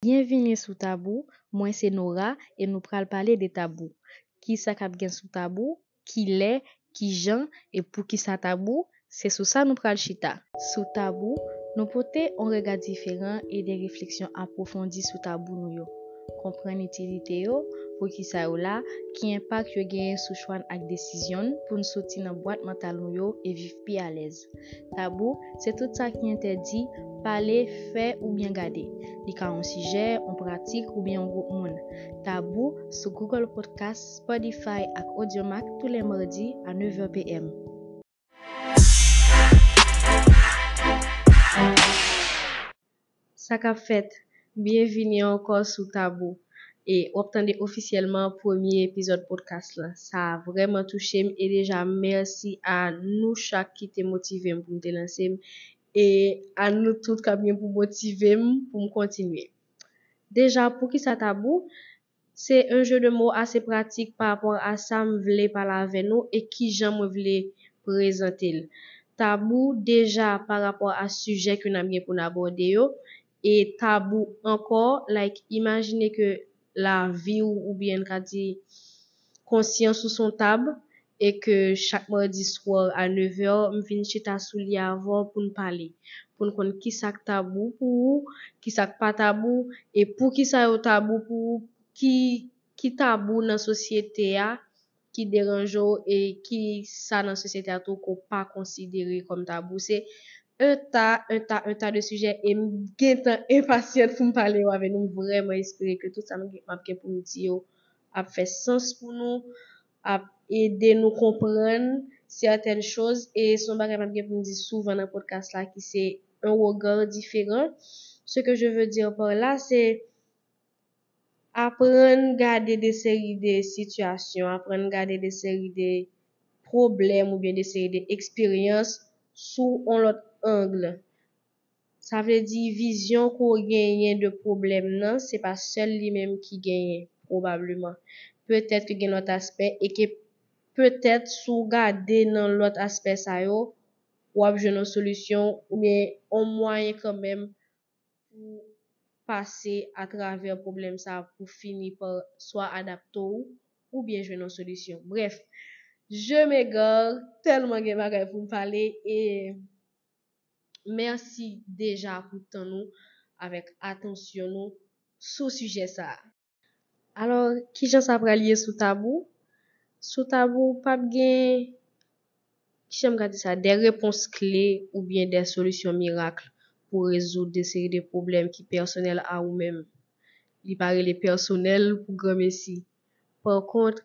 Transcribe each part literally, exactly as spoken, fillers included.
Byenvini sou Tabou, mwen se Nora e nou pral pale de tabou. Kisa k ap gen sou tabou? Kilè, kijan e poukisa tabou? Se sou sa nou pral chita. Sou Tabou, nou pote yon rega diferan e de refleksyon apwofondi sou tabou nou yo. Konprann itilite yo, poukisa yo la, ki enpak yo genyen sou chwa n ak desizyon n pou n soti nan bwat mantal nou yo e viv pi alèz. Tabou, se tout sa ki entèdi pale, fè oubyen gade. Li ka yon sijè, yon pratik oubyen yon gwoup moun. Tabou sou Google Podcast, Spotify ak Audiomack tou lè madi a nèv è p m. Sa k ap fèt? Byenvini ankò sou Tabou. E w ap tande ofisyèlman premye epizòd podcast lan. Sa vrèman touche m e deja mèsi a nou chak ki te motive m pou m te lanse m e a nou tout k ap gen pou motive m pou m kontinye. Deja, poukisa tabou? Se yon jeu de mots ase pratik pa rapò a sa m vle pale avè nou e kijan mwen vle prezante l. Tabou deja pa rapò a sijè ke n ap gen pou n abòde yo, e tabou ankò, like, imajine ke lavi w oubyen n ka di konsyans ou se yon tab e ke chak madi swa a nèv è, m vin chita sou li avè w pou n pale, pou n konn kisa k tabou pou ou, kisa k pa tabou e poukisa yo tabou pou ou, ki, ki tabou nan sosyete a ki deranje w e ki sa nan sosyete a tou ke w pa konsidere kòm tabou. Se un tas, un tas, un tas de sijè e m gentan enpasyant pou m pale yo avè nou. M vrèman espere ke tout sa m gen, m ap gen pou m di yo ap fè sans pou nou, ap ede nou konprann sètèn choz e se yon bagay m ap gen pou m di souvan nan podcast la ki se un regard différent. Ce que je veux dire par là, c'est aprann gade de seri de sitiyasyon, aprann gade de seri de pwoblèm oubyen de seri de eksperyans sou yon lòt ang. Sa vle di vizyon ke w genyen de pwoblèm nan, se pa sèl li menm ki genyen, pwobableman. Petèt ke gen lòt aspè e ke petèt si w gade nan lòt aspè sa yo, w ap jwenn yon solisyon oubyen yon mwayen kanmenm pou pase atravè pwoblèm sa a pou fini pa swa adapte w oubyen jwenn yon solisyon. Brèf, je m'égare, tèlman gen bagay pou m pale e mèsi deja pou tan nou avèk atansyon nou sou sijè sa a. Alò, kijan sa pral ye sou tabou? Sou tabou, p ap gen, kijan m ka di sa, de repons kle oubyen de solisyon mirak pou rezoud de seri de pwoblèm ki pèsonèl a ou menm. Li pa rele pèsonèl pou granmesi. Pa kont,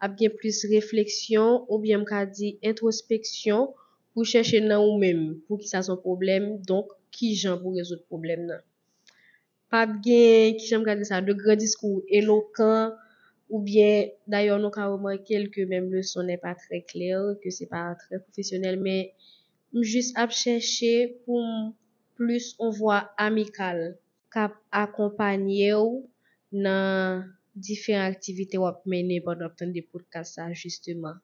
ap gen plis refleksyon oubyen m ka di entwospeksyon pou chèche nan ou menm poukisa se yon pwoblèm, donk kijan pou rezoud pwoblèm nan. Pa ap gen, kijan m ka di sa, de gran diskou elokan, oubyen dayè nou ka remake l ke menm le son n'est pas très clair, ke se pa trè pwofesyonèl, men m jis ap chèche pou m plis yon vwa amikal k ap akonpanye w nan diferan aktivite w ap mennen pandan w ap tande podcast sa, jisteman.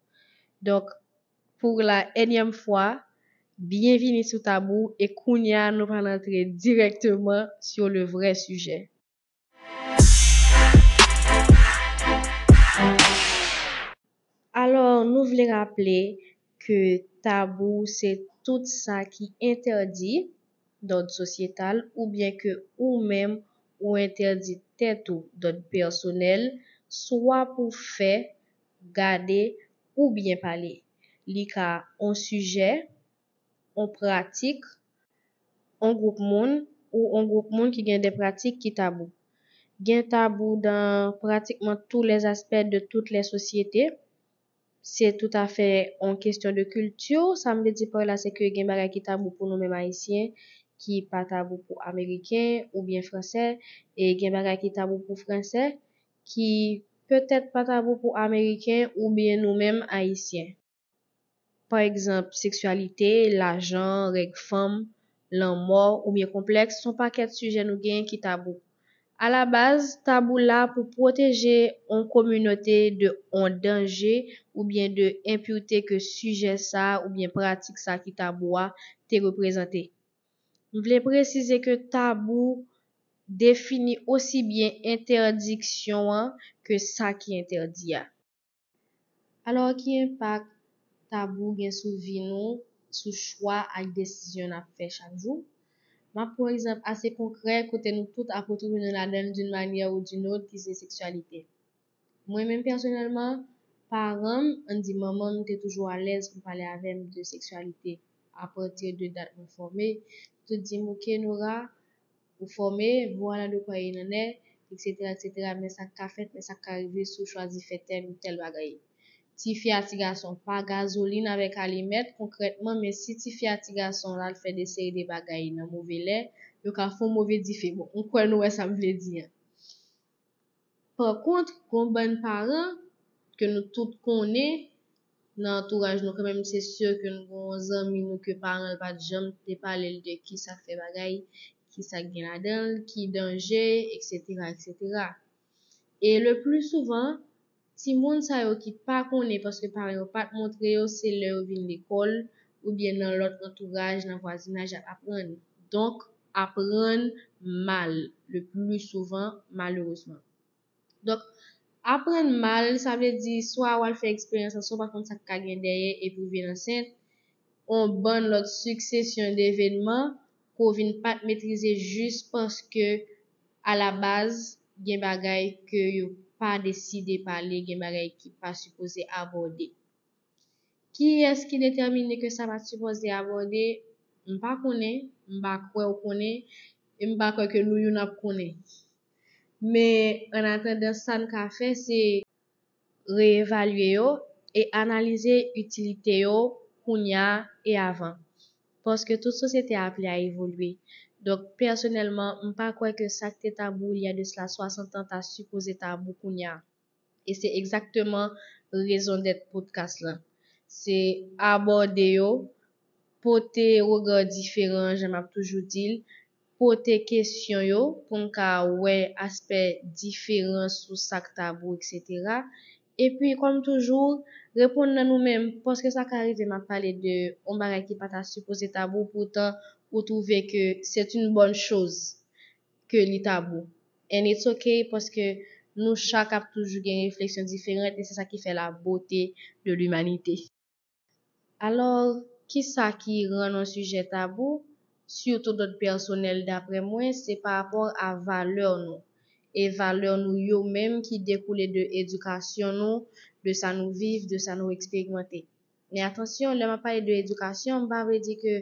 Donk, pour la énième fois, byenvini sou Tabou e kounye a nou pral antre dirèkteman sur le vrai sujet. Alò, nou vle raple ke tabou se tout sa ki entèdi d'ordre sociétal oubyen ke ou menm ou entèdi tèt ou d'ordre personnel, swa pou fè, gade oubyen pale. Li ka on sijè, on pratik, on gwoup moun ou on gwoup moun ki gen de pratik ki tabou. Gen tabou dans pratiquement tous les aspects de toutes les sociétés. Se toutafè on kesyon de kilti. Sa m vle di pa la, se ke gen bagay ki tabou pou nou menm Ayisyen, ki pa tabou pou Ameriken oubyen Fransè, e gen bagay ki tabou pou Fransè, ki petèt pa tabou pou Ameriken oubyen nou menm Ayisyen. Pa egzanp, seksyalite, lajan, règ fanm, lanmò oubyen konplèks, se on pakèt sijè nou genyen ki tabou. Alabaz, tabou la pou pwoteje on kominote de on danje oubyen de enpirte ke sijè sa oubyen pratik sa ki tabou a te reprezante. M vle presize ke tabou defini osi byen entèdiksyon an ke sa ki entèdi a. Alò, ki enpak tabou gen sou vi nou, sou chwa ak desizyon n ap fè chak jou? M ap pran yon egzanp ase konkrè kote nou tout ap retwouve nou ladan l d'une manière ou d'une autre, ki se seksyalite. Mwen menm pèsonèlman, paran m, ann di manman m, te toujou alèz pou pale avè m de seksyalite. Apati de dat mwen fòme, yo te di m, "Oke, Nora, ou fòme, vwala de kwa e nan nè, et cetera, et cetera, men sa k ka fèt, men sa k ka rive si w chwazi fè tèl ou tèl bagay." Tifi a ti gason, pa gazolin avèk alimèt, konkrètman, men si tifi a ti gason al fè de seri de bagay nan move lè, yo ka fè yon move dife. Bon, m kwè nou wè sa m vle di an. Pa kont, gon bann paran ke nou tout konnen nan antouraj nou, kanmenm, se si ke nou gon zanmi nou ke paran l pa t janm te pale l de kisa k fè bagay, kisa k gen ladan l, ki danje, et cetera, et cetera. E le pli souvan, timoun sa yo ki pa konnen paske paran yo pa t montre yo, se lè yo vin lekòl oubyen nan lòt antouraj, nan vwazinaj, y ap aprann. Donk, aprann mal, le pli souvan, malerezman. Donk, aprann mal, sa vle di swa w al fè eksperyans lan, swa w pa konn sa k ka gen dèyè, epi w vin ansent, yon bann lòt siksesyon devenman ke w vin pa t metrize jis paske, alabaz, gen bagay ke yo pa deside pale, gen bagay ki pa sipoze abòde. Kiyès ki detèmine ke sa pa t sipoze abòde? M pa konnen, m pa kwè w konnen, e m pa kwè ke nou youn ap konnen. Men, annatandan, sa n ka fè, se reevalye yo e analize itilite yo kounye a e avan. Paske tout sosyete a aple a evolye. Donk, pèsonèlman, m pa kwè ke sa k te tabou il y a de cela soixante ans ta sipoze tabou kounye a. E se egzakteman rezon dèt podcast lan. Se abòde yo, pote rega diferan, jan m ap toujou di l, pote kesyon yo pou n ka wè aspè diferan sou sa k tabou, et cetera. Epi, kòm toujou, reponn nan nou menm, paske sa ka rive m ap pale de yon bagay ki pa ta sipoze tabou, poutan ou twouve ke c'est une bonne chose ke li tabou. And it's okay, paske nou chak ap toujou gen refleksyon diferan, e se sa ki fè la beauté de l'humanité. Alò, kisa ki rann yon sijè tabou? Sitou dòt pèsonèl, daprè mwen, se pa rapò a valè nou. E valè nou yo menm ki dekoule de edikasyon nou, de sa nou viv, de sa nou eksperimante. Men atansyon, lè m ap pale de edikasyon, m pa vle di ke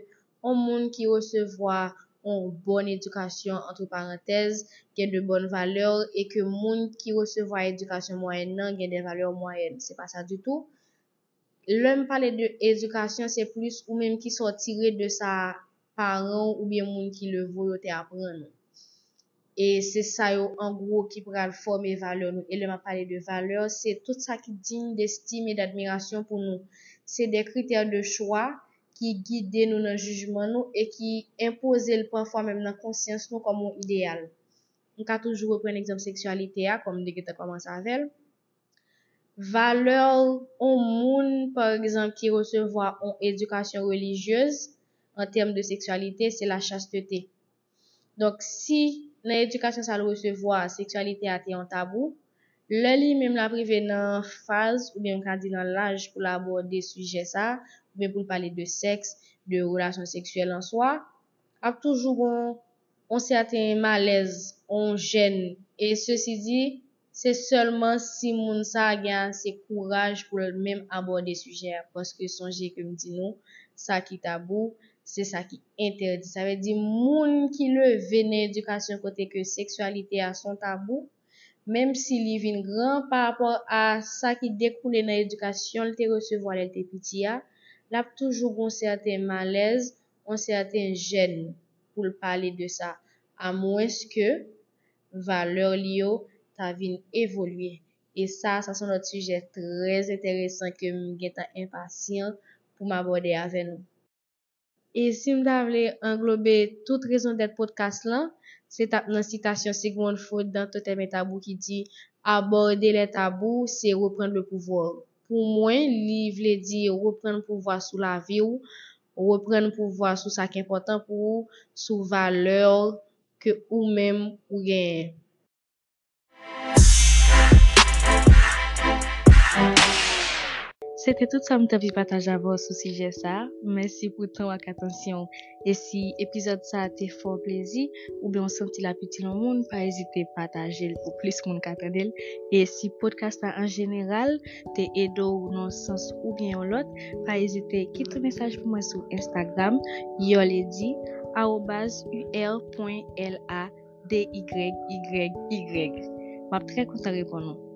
yon moun ki resevwa yon bòn edikasyon, antre parantèz, gen de bòn valè, e ke moun ki resevwa edikasyon mwayèn nan gen de valè mwayèn. Se pa sa ditou. Lè m pale de edikasyon, se plis ou menm ki sa w tire de sa paran w oubyen moun ki leve w yo te aprann ou. E se sa yo, an gwo, ki pral fòme valè nou. E lè m ap pale de valè, se tout sa ki digne d'estime et d'admiration pou nou. Se de kritè de chwa ki gide nou nan jijman nou e ki enpoze l pafwa menm nan konsyans nou kòm yon ideyal. M ka toujou reprann egzanp seksyalite a, kòm m te gentan kòmanse avè l. Valè yon moun, pa egzanp, ki resevwa yon edikasyon relijyez an tèm de seksyalite, se la chasteté. Donk, si nan edikasyon sa l resevwa, seksyalite a te yon tabou, lè li menm l ap rive nan faz, oubyen m ka di nan laj pou l abòde sijè sa, oubyen pou l pale de sèks, de relasyon seksyèl an swa, ap toujou gon yon sèten malèz, yon jèn. E sesi di, se sèlman si moun sa a gen ase kouraj pou l menm abòde sijè a. Paske sonje ke m di nou, sa ki tabou, se sa ki entèdi. Sa vle di, moun ki leve nan edikasyon kote ke seksyalite a se yon tabou, menm si li vin gran pa rapò a sa ki dekoule nan edikasyon l te resevwa lè l te piti a, l ap toujou gon sèten malèz, yon sèten jèn pou l pale de sa, amwenske valè li yo ta vin evolye. E sa, sa se yon lòt sijè trè enteresan ke m gentan enpasyan pou m abòde avè nou. E si m ta vle anglobe tout rezon dèt podcast lan, se t ap nan sitasyon Sigmund Freud dans Totem et Tabou ki di, abòde lè tabou, se reprann le pouvwa. Pou mwen, li vle di reprann pouvwa sou lavi w, reprann pouvwa sou sa k enpòtan pou ou, sou valè w, ke ou menm ou genyen. Se te tout sa m t anvi pataje avè w sou sijè sa a. Mèsi pou tan w ak atansyon w. E si epizòd sa a te fè w plezi, oubyen w santi l ap itil yon moun, pa ezite pataje l pou plis moun ka tande l. E si podcast la an jeneral te ede w nan yon sans oubyen yon lòt, pa ezite kite yon mesaj pou mwen sou Instagram, Yolady, arobase U R point L A D Y Y Y. M ap trè kontan reponn ou.